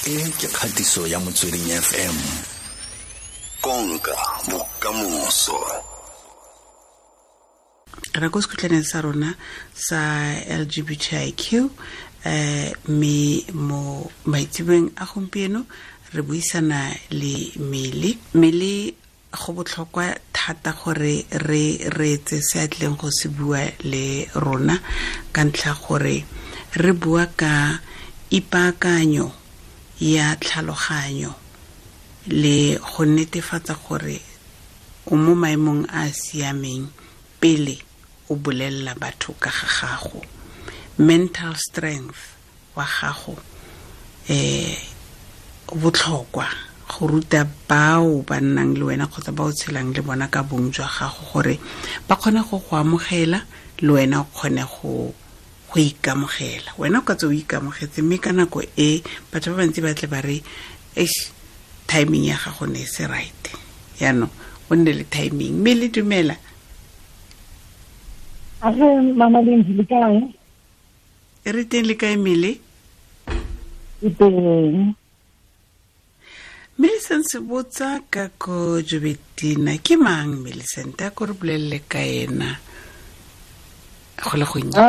E ke kgatiso ya Motsweding FM. Konka bokamoso. Re ko sekhutlhaneng sa rona sa LGBTIQ, mme mo maitseboeng a gompieno re buisana le Mele. Mele, go botlhokwa thata gore re reetse se a tlileng go se bua le rona, ka ntlha gore re bua ka ipaakanyo ya tlhaloganyo le go netefatsa gore o mo maemong a a siameng pele o bolelela batho ka ga gago. Mental strength wa gago o botlhokwa go ruta bao ba nnang le wena kgotsa ba o tshelang le bona ka bong jwa gago, gore ba kgone go go amogela le wena o kgone go ikamogela. Wena o ka tswa o ikamogetse, mme ka nako e batho ba bantsi ba tle ba re, eish, timing ya gago ne e se right. Yaanong o nne le timing. Mme le dumela. Age mama Lindy, le kae? E re teng, le kae Mele? E teng. Millicent Sebotsa ka ko Joubertina. Ke mang Millicent? A ko re bolelele ka ena go le gonnye.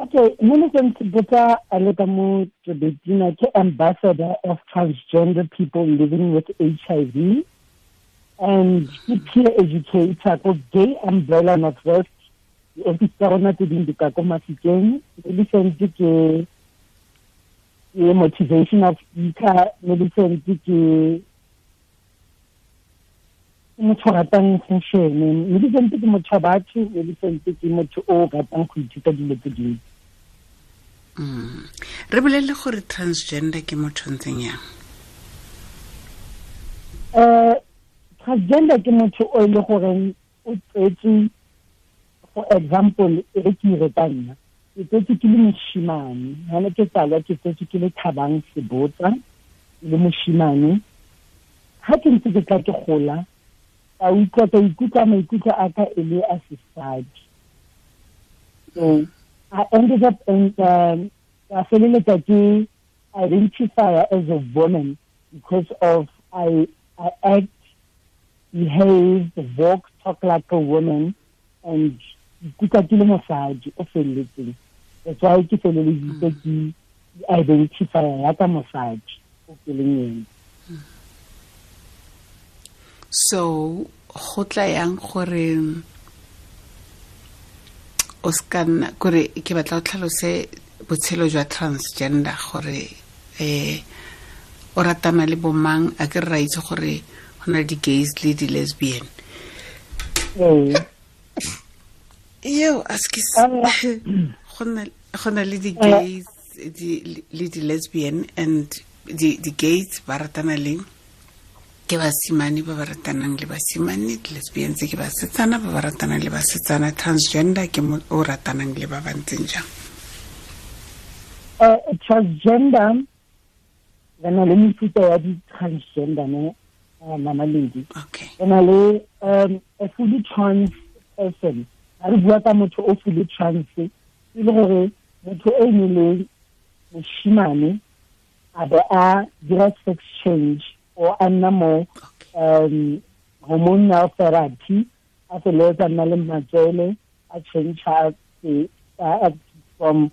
Okay, Millicent Sebotsa a le ka mo Joubertina ke ambassador of transgender people living with HIV and ke peer educator ko Gay Umbrella Northwest. Di-office tsa rona tse dingwe di ka ko Mafikeng. Millicent ke motivational speaker. Millicent ke motho o ratang fashion. Millicent ke motho wa batho. Millicent ke motho o ratang go ithuta dilo tse dintsi. Re bolelele gore transgender ke motho o ntseng yang? Transgender ke motho o e le goreng o tsetswe, for example, e re ke ire ka nna, ke tsetswe ke le moshimane. Ha ne ke tsalwa ke tsetswe ke le Thabang Sebotsa, ke le moshimane. Ha ke ntse ke tla ke gola, ka utlwa, ka ikutlwa maikutlo a ka e le a sesadi. So I ended up in, ka feleletsa ke identify as a woman because of I act, behave, walk, talk like a woman, and ikutlwa ke le mosadi o felletseng. That's why ke feleleditse ke identify ya ka mosadi o ke leng ene. So go tla yang gore o ska nna, kore ke batla o tlhalose botshelo jwa transgender, gore o ratana le bomang? A ke re ra itse gore go na le di-gays le di-lesbian. Eo, a se ke go na le di-gays le di-lesbian, and di-gays ba ratana le ke basimane ba ba ratanang le basimane, di-lesbians ke basetsana ba ba ratanang le basetsana, transgender ke mo o ratanang le ba ba ntseng jang? Transgender, re na le mefuta ya di-transgender, ne, Mama Lady. Re na le a fully trans person. Ha re bua ka motho o fully trans, e le gore motho e ne le moshimane a be a dira sex change or a nna mo hormonal therapy, a feleletsa nna le matswele, a change from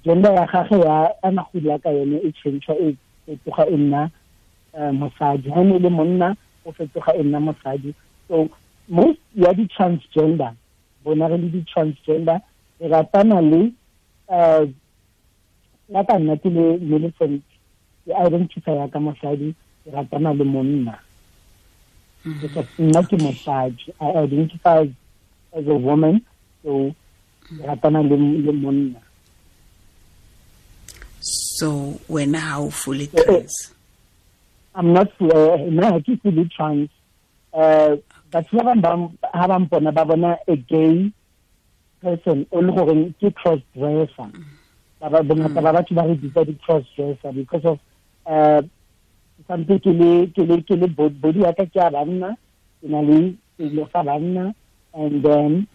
gender ya gagwe ya a na go dula ka yone e change, e fetoga e nna mosadi. Ha ne le monna, o fetoga e nna mosadi. So most ya di-transgender, bona re le di-transgender, re ratana le ya ka nna ke le Millicent, ke identify ya ka mosadi, ke ratana le monna. Because nna ke mosadi, I identify as a woman, so ke ratana le monna. So wena ha o fully trans? I'm not, nna ha ke fully trans. Batho ba bang ha ba mpona ba bona a gay person o le goreng ke cross dresser. Ba ba bongata ba batho ba re bitsa di cross dresser because of sampe ke le, ke le, ke le body ya ka ke ya banna, ke na le selo sa banna, and then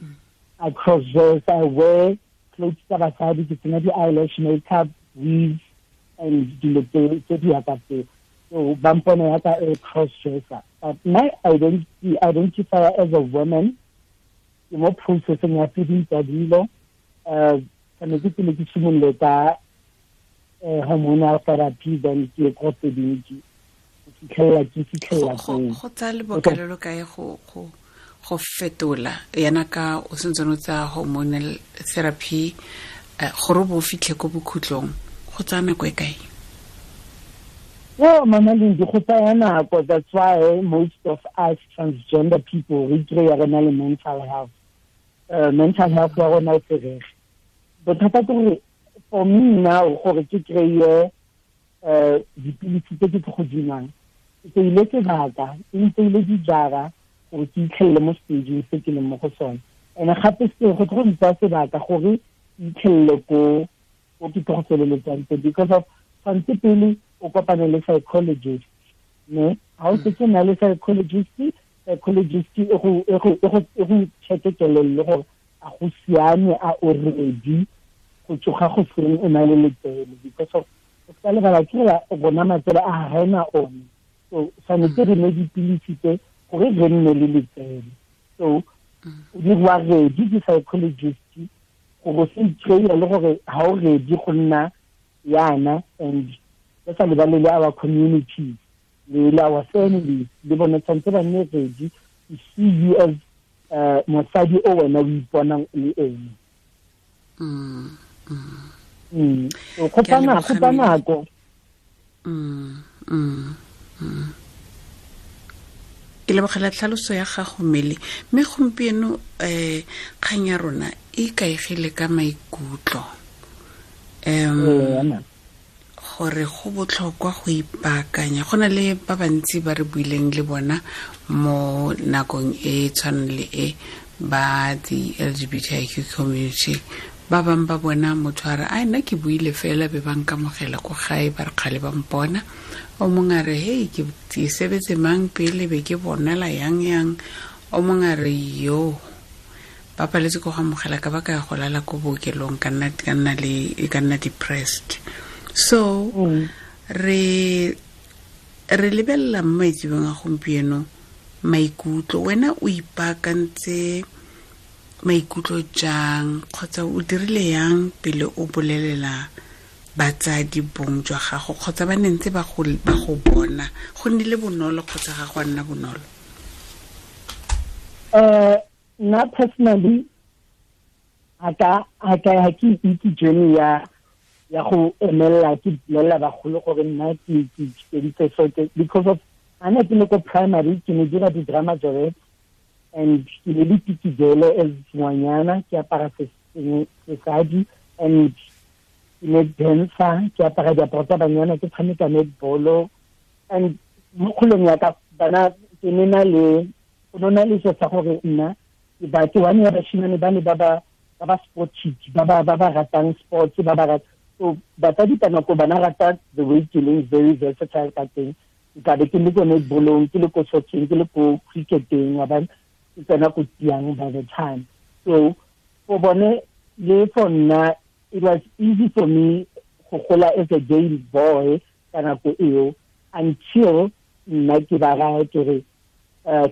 I cross dress, I wear clothes tsa basadi, ke tsenya di eyelash makeup, weave, And dilo tse di yaka tseo. So ba mpona yaka a cross dresser, but my identity, identify as a woman. Ke mo processing ya tse ding tsa dilo. Tshwanetse pele ke simolole ka hormonal therapy, then ke ye ko tse dingwe ke fitlhelela ke fitlhelela Go koo. Go tsaya lebaka le lo kae go fetola yana ka o sentse o tsaya hormonal therapy, gore o bo o fitlhe ko bokhutlong, go tsaya nako e kae? Well, Mama Lindi, go tsaya nako. That's why most of us transgender people re kry-a re na le mental health. Mental health ya rona e ferege. Bothata ke gore for me now, gore ke kry-e dipilisi tse ke tlo go di nwang, ke tseile sebaka, e ntseile dijara gore ke itlhelele mo stageng se ke leng mo go sone. And gape se go tlo go ntsaya sebaka gore ke itlhelele ko ke tlo go feleletsang teng, because of tshwanetse pele o kopane le psychologist, ne ha o setse na le psychologist, psychologist e go check-e kelello gore a go siame, a o ready go tsoga go seng o na le letsele, because of o ska lebala ke gore rona matsele a ga ena one. So tshwanetse re nwe dipilisi tse gore re nne le letsele. So o dirwa ready ke psychologist gore o se ikry-e le gore ha o ready go nna yana. And re sa lebale le our communities le our families, le bone tshwanetse ba nne ready to see you as mosadi o wena o iponang o le ene. So go Ke a tsa nako, go leboga, tsa Mele. nako. Ke lebogela tlhaloso ya gago, Mmele. Mme gompieno kgang ya rona e ikaegile ka maikutlo, Ee, gore go botlhokwa go ipaakanya. Go na le ba bantsi ba re buileng le bona mo nakong e tshwanang le e ba the LGBTIQ community. Ba bangwe ba bona motho a re, "Ai, nna ke buile fela, be ba nkamogela ko gae, ba re kgale ba mpona." O mongwe a re, "Hei, ke sebetse mang pele, be ke bonala yang yang." O mongwe a re, "Yo, ba paletse ko go amogela ka ba ka ya go lala ko bookelong, ka nna depressed." So re lebelela mo maitsebong a gompieno maikutlo. Wena o ipaakantse maikutlo jang, kgotsa o dirile yang pele o bolelela batsadi bong jwa gago, kgotsa ba ne ntse ba go bona, go nnile bonolo kgotsa ga go a nna bonolo? Nna personally ha ke itse journey ya go emelela ke bolelela bagolo gore nna ke feditse so because of a ne ke le ko primary, ke ne dira di-drama joret and ke ne le tikijele as ngwanyana, ke apara sesadi and ke ne dancer, ke apara diaparo tsa banyana, ke tshameka netball. And mo kgolong ya ka bana ke ne na le go na le se sa gore nna ke ba ke one ya bashimane ba ne ba sport chick, ba ratang sports, ba ba rata. So batsadi ka nako bana rata the way ke leng very versatile ka teng. Ke tla be ke le ko netballong, ke le ko socceng, ke le ko cricketeng, wa bona, ke tsena ko tiang by the time. So for bone le for nna, it was easy for me go gola as a gay boy ka nako eo, until nna ke ba raya ke re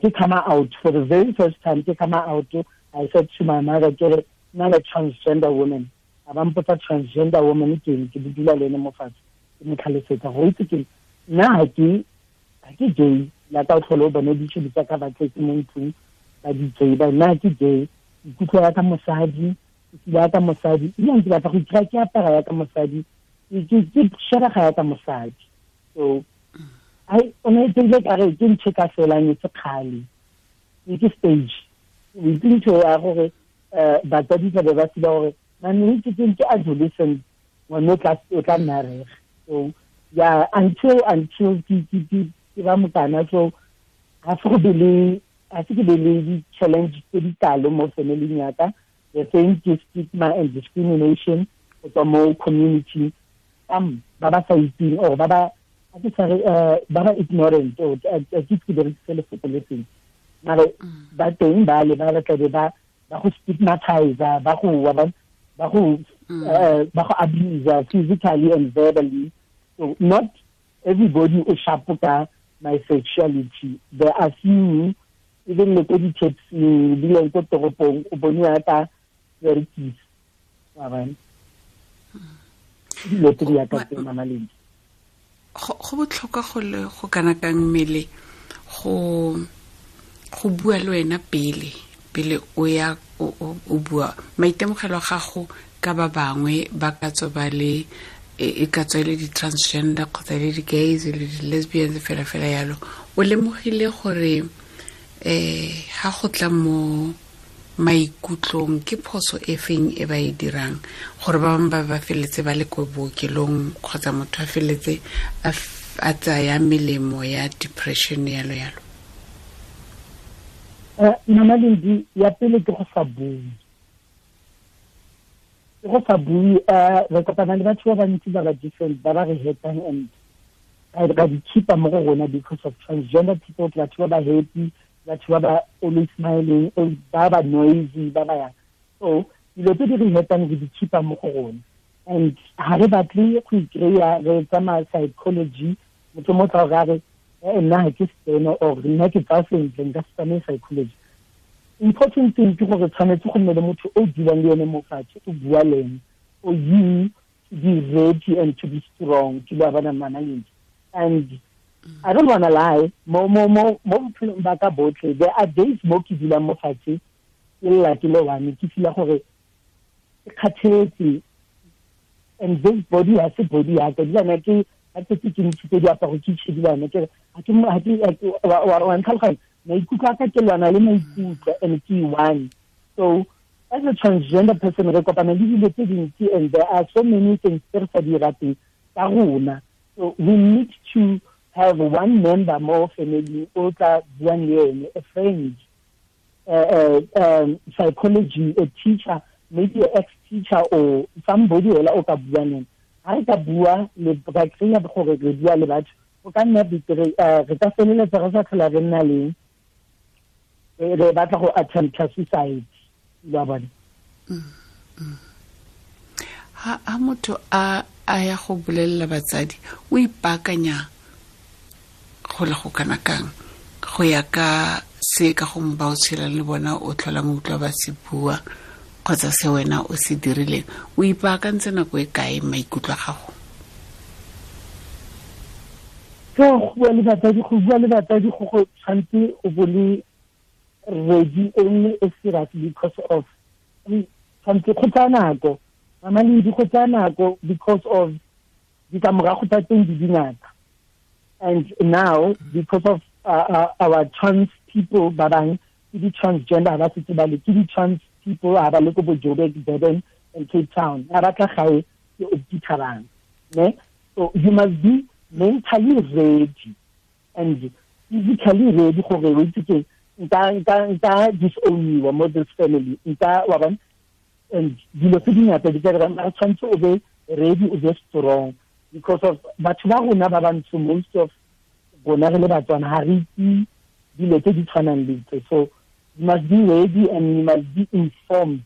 ke come out for the very first time. Ke come out, I said to my mother ke re, "Nna le transgender woman." A ba mpotsa, "Transgender woman ke eng?" Ke dula le ene mo fatshe, ke mo tlhalosetsa gore itse ke nna ha ke gay la ka o tlhole o bone ditšhobi tsa ka ba tletse mo ntlong ba di tseba. Nna ha ke gay, ikutlwa ya ka mosadi, ke feel ya ka mosadi, ebile ke batla go ikry ke apara ya ka mosadi, ke shebega ya ka mosadi. So ai, o ne tsile ka re ke ntho ka felang e se kgale, ke stage o itse ntho ya gore batsadi tla be ba feel gore mane ke adolescent, ngwane o tla nna rege. So yeah, until ke ba mokana, so ga se ke be le di-challenge tse di kalo mo family ya ka. The same ke stigma and discrimination go tswa mo community, ba ba sa itseng or ba ba a ke sa re ba ba ignorant, or a ke ke berekise lefoko le seng, mare ba teng ba le ba tlabe ba go stigmatize, ba go abuse physically and verbally. So not everybody o sharp ka my sexuality. There are few, even le ko di-taxing, ebile ko toropong, o boniwa ka berekisa. Wa bona? Dilo tse di yaka tse, Mama Lindi. Go botlhokwa go le go kana kang mmele go bua le wena pele o ya o bua maitemogelo a gago ka ba bangwe ba ka tswa ba le e ka tswa le di-transgender kgotsa le di-gays le di-lesbians fela fela yalo, o lemogile gore ha go tla mo maikutlong ke phoso e feng e ba e dirang gore ba bangwe ba ba feletse ba le ko bookelong kgotsa motho a feletse a tsaya melemo ya depression yalo yalo? Mama Lindi, ya pele ke go sa bue. Ke go sa bue, re kopana le batho ba bantsi ba ba different, ba ba re hetang and ra di keep-a mo go rona because of transgender people, ke batho ba ba happy, batho ba ba always smiling, ba ba noisy, ba ba yang. So dilo tse di re hetang re di keep-a mo go rona. And ha re batle go ikry-a re tsamaya psychology, motho mo tla go re nna ha ke steno or nna ke tsa sentle, nka se tsamaye psychology. Important thing ke gore tshwanetse go nne le motho o dulang le ene mo fatshe, o bua le ene, for you to be ready and to be strong, ke ba bana Mama Lindi. And I don't wanna lie, mo bophelong ba ka botlhe, there are days mo ke dulang mo fatshe, ke lla ke le one, ke feel-a gore ke kgathetse, and this body ha se body ya ka, dilana ke ha ke ke ntshitse diaparo ke tshedilana, ke re ha ke wa ntlhaloganya, maikutlo a ka ke lwana le maikutlo and ke one. So as a transgender person re kopana le dilo tse dintsi and there are so many things tse re sa di rateng tsa rona. So we need to have one member more family o tla buang le ene, a friend, psychology, a teacher, maybe an ex-teacher or somebody ela o ka buang le ene. Ha re ka bua le ra kry-a gore re bua le batho, o ka nna betere, re ka feleletsa re sa tlhola re nna le re batla go attempt suicide, lo a bona. Ha motho a ya go bolelela batsadi, o ipaakanya go le go kana kang go ya ka se ka gongwe ba o tshelang le bona o tlholang o utlwa ba se bua kgotsa se wena o se dirileng, o ipaakantse nako e kae maikutlo a gago? Go bua le batsadi, go bua le batsadi go tshwanetse o bo le ready e nne e serious because of tshwanetse go tsaya nako, Mama Lindi, go tsaya nako because of ditlamorago tsa teng di dingata. And now because of our trans people ba bang ke di-transgender ba setse ba le ke di-trans people ha ba le ko bo Joburg, Durban and Cape Town, ha ba tla gae ke o dithabang, ne? So you must be mentally ready and physically ready gore o itse ke nka disown-iwa mo this family, nka wa bona. And dilo tse dingata di ka dira, mara tshwanetse o be ready, o be strong because of batho ba rona ba bantsho, most of rona re le Batswana ha re itse dilo tse di tshwanang le tse. So you must be ready and you must be informed.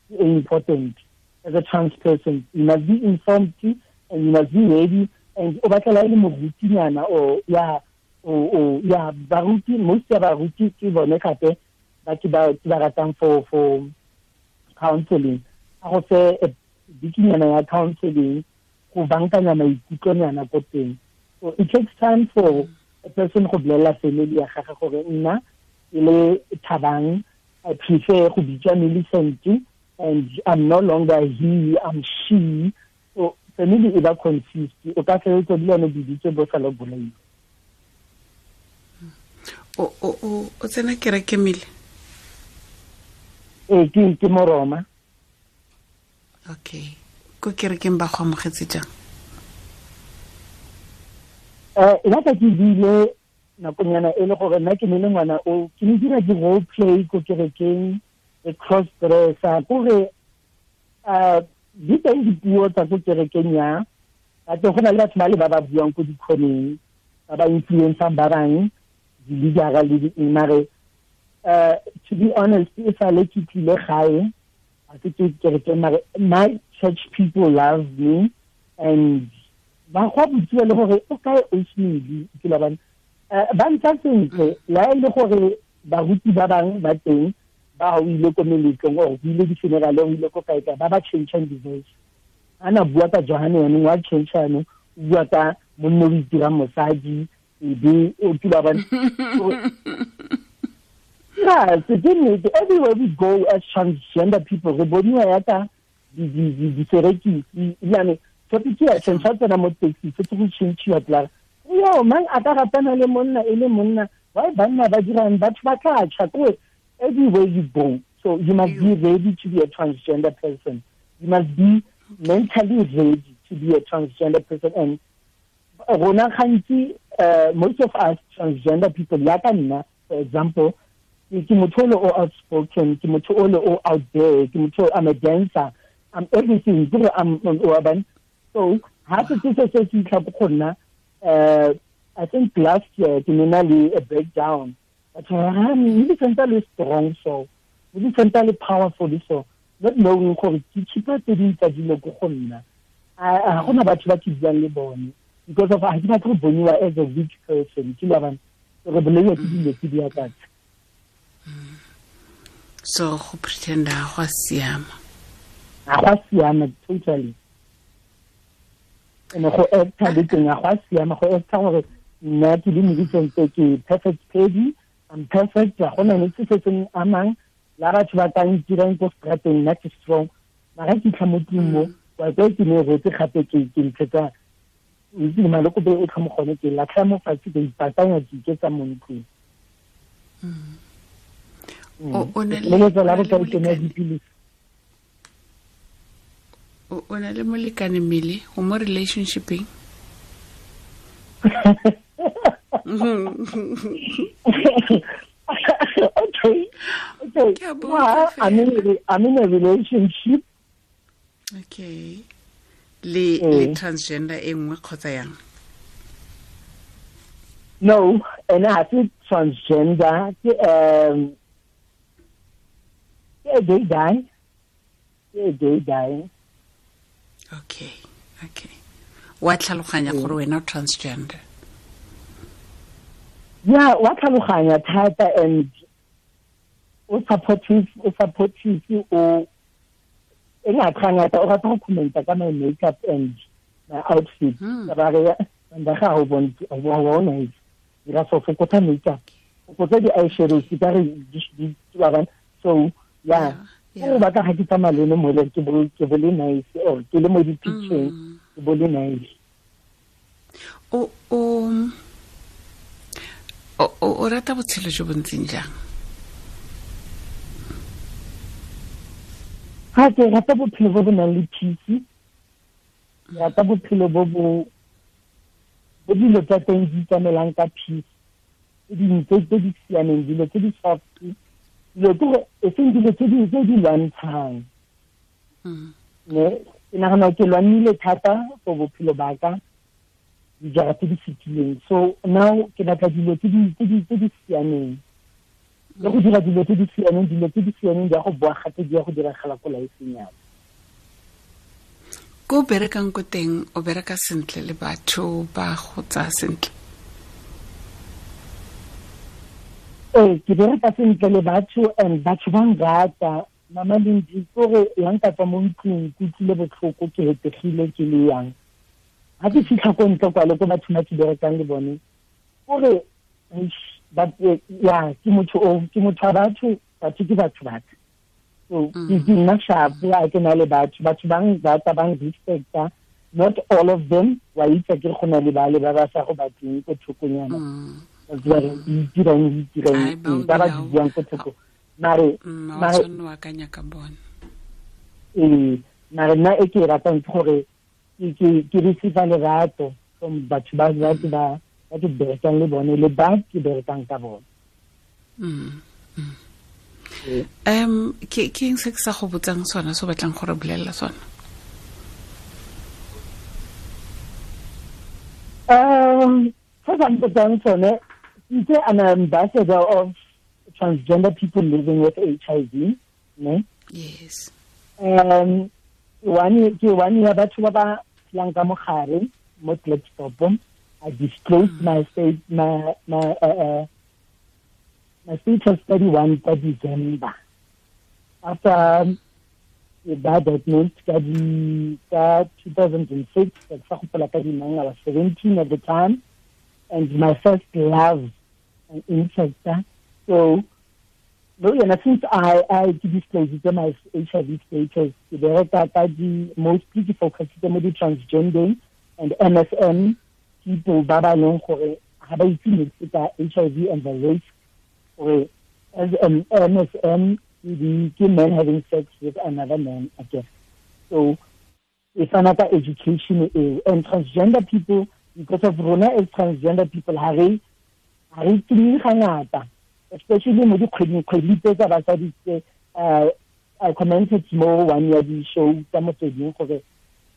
Important as a trans person, you must be informed and you must be ready. And o batlela e le morutinyana or ya o ya baruti, most ya baruti ke bone gape ba ke ba ratang for counseling. A go fe bikinyana ya counseling go bankanya maikutlonyana ko teng. So it takes time for a person go bolela family ya gagwe gore nna ke le Thabang, I prefer go bitswa Millicent and I'm no longer he, I'm she. So family e ba confused, o ka feleletsa le yone biditse bo sa le bolaiwa. O tsena kereke mele? Ee, ke Moroma. Okay, ko kerekeng ba go amogetse jang? Nna ka ke bile nakonyana e le gore nna ke ne le ngwana o ke ne dira di-role play ko kerekeng, e cross dresser, kore di teng dipuo tsa ko kerekeng ya batho, go na le batho ba le ba ba buang ko dikhoneng, ba ba influencang ba bang, di-leadera le di-eng. Mare to be honest, e sale ke tlile gae, ga se ke kerekeng, mare my church people love me and Ba go botsiwa le gore o kae Osmedi ke la bana ba ntsa sentle la e le gore baruti ba bang ba teng ba o ile ko meletlong or o ile di-funeral o ile ko kae kae ba ba changeang di-voice ana bua ka Johane yanong wa change yanong o bua ka monna o itirang mosadi ebe o tula ba yeah, so everywhere we go as transgender people re boniwa yaka diserekisi ebilane topic ya change tsena mo taxi se go change tla yo mang a ka ratana le monna e le monna why banna ba dirang batho ba tla tšha ko everywhere you go. So you must be ready to be a transgender person. You must be mentally ready to be a transgender person. And rona gantsi most of us transgender people yaka nna for example ke motho o le o outspoken, ke motho o le o out there, ke motho I'm a dancer, I'm everything, ke I'm urban. So ha se se se fitlha go nna I think last year ke ne na le a breakdown. But le sentse le strong so, le sentse le powerful so, not knowing gore ke chipa tse ding tsa dilo go go nna. A gona batho ba ke buang le bone because of ha ke batla go boniwa as a weak person, ke la bana re bolelwa ke dilo tse di akatsa. So go pretenda go siama. A go siama totally. Ene go acta le teng a go siama go acta gore nna ke le moditseng ke perfect pedi, I'm perfect, ga gona ne se se seng amang la batho ba ka ntirang ko strateng nna ke strong. Mara ke tlha mo tlung mo wa ke ke ne rotse gape ke ke ntshetsa itse maloko be o tlha mo gone ke latlha mo fatshe ke ipatanya ke iketsa mo ntlong. O na le molekane mmele o mo relationshipeng? Okay. Well, I'm in a relationship. Okay. Le transgender e nngwe kgotsa yang? No, and I think transgender ke a gay guy. A gay guy. Okay. Wa tlhaloganya gore wena o transgender? Yeah, wa tlhaloganya thata and o supportive o e ngata o rata go commenta ka my makeup and my outfit. Ba re nda ga o bona dira so fokotsa makeup. Fokotsa di eyeshadows ka re di ba. So yeah, o batla ga ke tsamaya le mo le ke bo le nice or ke le mo di picture ke bo le nice. O rata botshelo jo bo ntseng jang? Ha ke rata bophelo bo bo nang le peace. Ke rata bophelo bo bo dilo tsa teng di tsamaelang ka peace. Dilo tse di siameng, dilo tse di soft, dilo ke e seng dilo tse di lwantshang. Ne ke nagana ke lwanile thata for bophelo ba ka dijara tse di fetileng. So now ke batla dilo tse di siameng. Le go dira dilo tse di siameng, dilo tse di siameng di a go boa gape di ya go diragala ko lifeng ya. Ko berekang ko teng o bereka sentle le batho ba go tsaya sentle? Ee, ke bereka sentle le batho and batho ba nrata. Mama Lindi kore ya nka tswa mo ntlong ke utlwile botlhoko ke hetegile ke le yang. Ha ke fitlha ko ntle kwa le ko batho ba ke berekang le bone kore ya ke motho o ke motho wa batho, batho ke batho batho. So ke nna sharp ya ke na le batho, batho ba nrata ba nrespecta. Not all of them wa itse ke go na le ba le ba ba sa go batleng ko thokonyana. Ba re itirang ba ba buang ko thoko. Mare wa akanya ka bona. Mare nna e ke ratang ke gore ke receive lerato from batho ba ba ke berekang le bone le ba ke berekang ka bone. Ke eng se ke sa go botsang sona se o batlang go re bolelela sona? Se sa mpotsang sone, ke an ambassador of transgender people living with HIV, ne? Yes. Ke one ya batho ba ba phelang ka mogare. mo Klerksdorp. I disclosed my state my my my status 31 ka December. After ba diagnosed ka 2006, I was 17 at the time, and my first love and interest. So, since I disclosed my HIV status, mostly focused on the transgender and MSM people, ba leng gore ga ba itse niks ka HIV and the risk. Or as an MSM, ke men having sex with another man, I guess. So it's another education. And transgender people, because of rona as transgender people, ha re tsebe gangata, especially mo dikgweding tse tsa basadi tse. I commented more one year di show tsa motsweding gore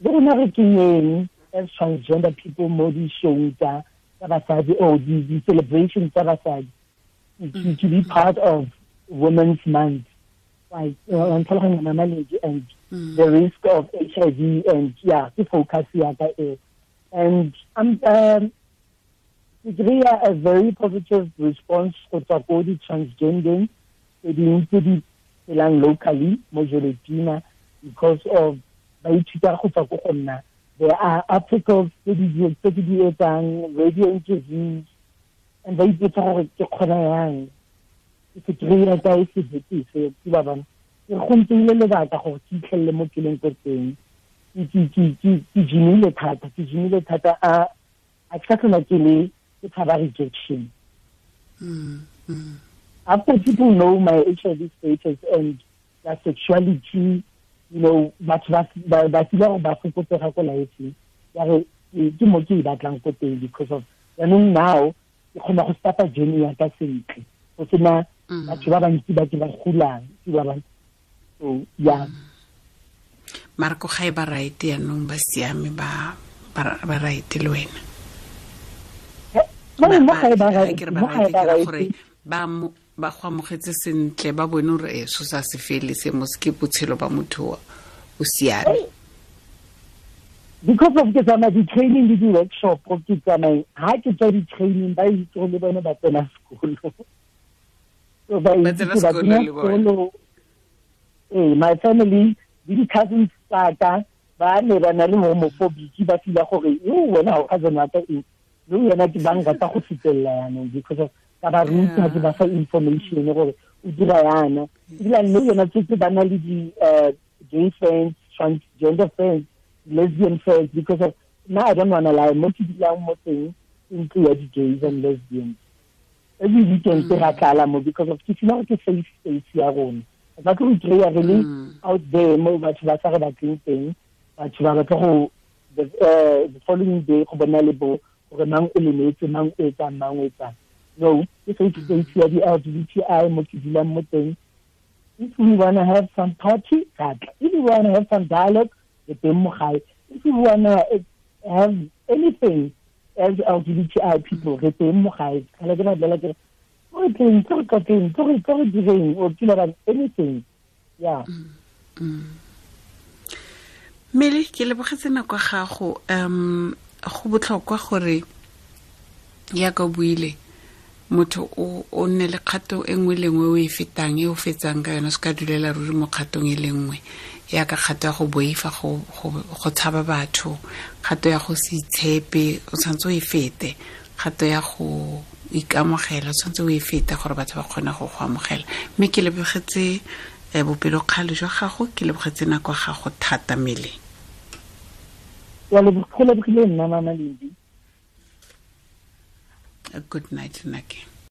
le rona re kenyeng as transgender people mo di show tsa basadi or di celebration tsa basadi, to be part of Women's Month, like and the risk of HIV, and yeah, the focus and I'm a very positive response for the transgender locally mo Joubertina, because of there are articles, radio interviews, and ba ipotsa gore ke kgona yang ke kry-a kae sebete se ke ba bana ke go nteile lebaka gore ke itlhelele mo ke leng ko teng. Ke jimile thata a ke sa tlhola ke le ke tshaba rejection. After people know my HIV status and their sexuality, you know, batho ba feel gore ba fokotsega ko life ya re ke mo ke e batlang ko teng, because of jaanong now ke kgona go starta journey ya ka sentle go sena batho ba bantsi ba ke ba golang ke ba bang. So yeah, Marco ga e ba right yaanong ba siame ba right le wena mo ga e ba right gore ba go amogetse sentle, ba bone gore e so sa se fele se mo se ke botshelo ba motho o siame. Because of ke tsamaya di-training le di-workshop, ke tsamaya ha ke tswa di-training ba itse gore le bone ba tsena sekolo. So ba itse ba tsena sekolo. My family le di-cousins tsa ka ba ne ba na le homophobic, ba feel gore yo wena ha o cousin wa ka eng, le wena ke ba nrata go fetelela yanong, because of ka ba ruta ke ba fa information gore o dira yana. Ebile le yona tse ba na le di gay friends, transgender friends, lesbian friends, because of now I don't wanna lie, mo ke dulang mo teng ntlo ya di-gays and lesbians. Every weekend ke ra tlala mo, because of ke feel gore ke safe space ya rona. Ba tlo kry-a re le out there mo batho ba sa re batleng teng, batho ba batla go the following day go bona le bo gore mang o lemetse, mang o etsang, mang o etsang. No, ke safe space ya di-LGBTI mo ke dulang mo teng. If we wanna have some party, if we wanna have some dialogue, if you wanna have anything as LGBTI people, anything. Yeah. Mmele ke lebogetse nako ya gago. Go botlhokwa gore ya ka buile motho o nne le kgato e nngwe le nngwe o e fetang e o fetsang ka yona, se ka dulela ruri mo kgatong e le nngwe, ya ka kgato ya go boifa go tshaba batho, kgato ya go se itshepe o tshwanetse o e fete, kgato ya go ikamogela o tshwanetse o e fete gore batho ba kgone go go amogela. Mme ke lebogetse bopelokgale jwa gago, ke lebogetse nako ya gago thata Mmele. Go lebogile nna Mama Lindi. Good night, Nake.